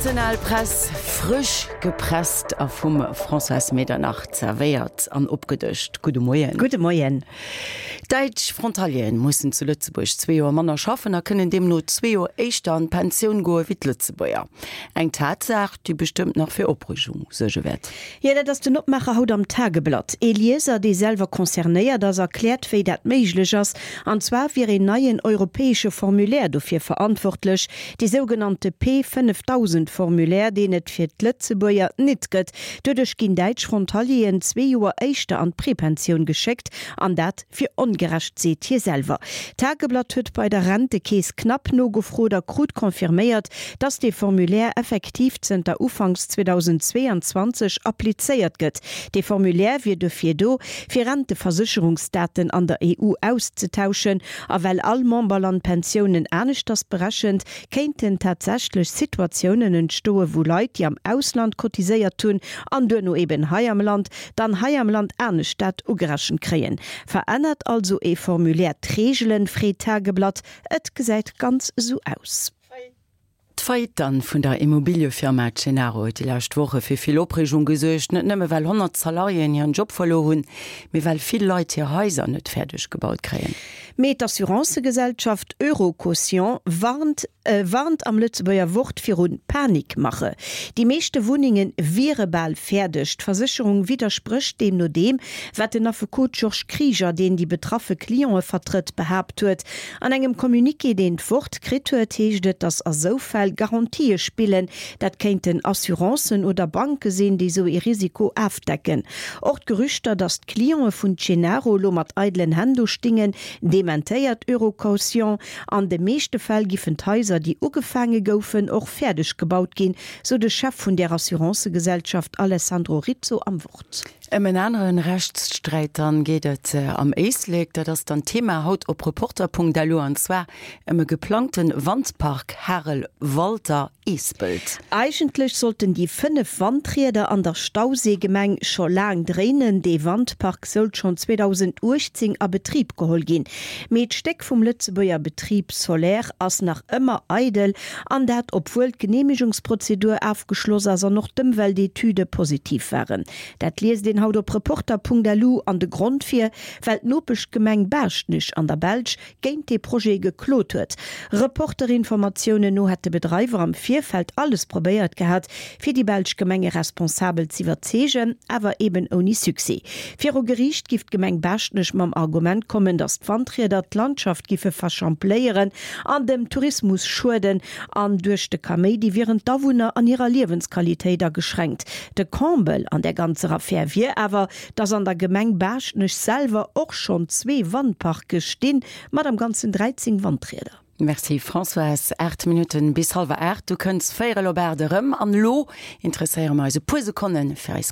National Press, frësch gepresst a vum Françoise Medernach zerwéiert an opgedëscht. Gudde Moien. Gudde Moien. Däitsch Frontalieren mussen zu Lëtzebuerg zwee Joer manner schaffen a kënnen deemno zwee Joer éischter an d'Pensioun goe wéi d'Lëtzebuerger. Eng Tatsaach, déi bestëmmt nach fir Opreegung suerge wäert. Jo, dat ass den Opmaacher haut am Tageblatt. Ee Lieser, dee selwer concernéiert ass, erkläert, wéi dat méiglech ass. An zwar wier een neien europäesche Formulaire dofir verantwortlech, dee sougenannte P 5000 Formulaire, deen et fir d'Lëtzebuerger nit gëtt. Doduerch ginn däitsch Frontalieren zwee Joer éischter an d'Prepensioun geschéckt, an dat wier ongerecht, seet hie selwer. D'Tageblatt huet bei der Rentekeess knapp nogefrot a krut confirméiert, dass dee Formulaire effektiv zënter Ufanks 2022 applizéiert gëtt. Dee Formulaire wier dofir do, fir Renteversécherungsdaten an der EU auszetauschen. A well all Memberland Pensiounen aneschters berechent, kéinten tatsächlech Situatiounen entstoen, wou Leit, déi am Ausland cotiséiert hunn an duerno eben hei am Land, dann hei am Land anescht dat ugerechent kréien. Verännert also ee Formulaire d'Reegelen, freet d'Tageblatt. Et gesäit ganz esou aus. D'Faillite dann vun der Immobiliëfirma Cenaro huet déi lescht Woche fir vill Opreegung gesuergt. Net nëmme well 100 Salariéen hiren Job verluer hunn, mee well vill Leit hir Haiser net fäerdeg gebaut kréien. Mee d'Assurancëgesellschaft Eurocaution warnt warnt am Lëtzebuerger Wort viru Panikmache. Déi meeschte Wunnenge wiere bal fäerdeg. D'Versécherung widdersprécht deemno deem, wat den Affekot Georges Krieger, deen déi betraffe Clientë vertrëtt, behaapt huet. An engem Communiqué, deen d'Wort kritt huet, heescht et, datt a sou Fäll Garantië spillen. Dat kéinten Assurancen oder Banke sinn, déi sou ee Risiko afdecken. Och d'Gerüchter, datt d'Clientë vun Cenaro lo mat eidelen Hänn do stingen, dementéiert Eurocaution. An de meeschte Fäll giffen d'Haiser, déi ugefaange goufen, och fäerdeg gebaut ginn, sou de Chef vun där Assurancëgesellschaft Alessandro Rizzo am Wort. Ëm en aneren Rechtssträit dann geet et am Éislek. Dat ass dann d'Thema haut op Reporter.lu an zwar ëm e geplangten Wandpark Harel Walter Eespelt. Eigentlech sollten déi 5 Wandrieder an der Stauséigemeng scho laang dréinen. Dee Wandpark soult schonn 2018 a Betrib geholl ginn. Mee d'Stéck vum Lëtzebuerger Betrib Soler ass nach ëmmer eidel, an dat obwuel d'Geneemegungsprozedur afgeschloss ass an och d'Ëmweltetüde positiv waren. Dat liest een haut op Reporter.lu an de Grond fir, well d'Nopeschgemeng Baaschtnech an der Belsch géint dee Projet geklot huet. Reporter-Informatiounen no hätt de Bedreiwer am Virfeld alles probéiert gehat, fir déi belsch Gemengeresponsabel z'iwwerzeegen, awer eben ouni Succès. Viru Geriicht giff d'Gemeng Baaschtnech mam Argument kommen, datt d'Wandrieder d'Landschaft giffe verschampléieren an dem Tourismus schueden an duerch de Kaméidi wieren d'Awunner an hirer Liewensqualitéit ageschränkt. De Comble an där ganzer Affär wier awer, dass an der Gemeng Baaschtnech selwer och schonn zwee Wandparke stinn, mat am Ganzen 13 Wandrieder. Merci Françoise. 8 Minutten bis hallwer 8, du kënns véierel op 8 erëm. An elo interesséiere mer eis e puer Sekonne fir eis.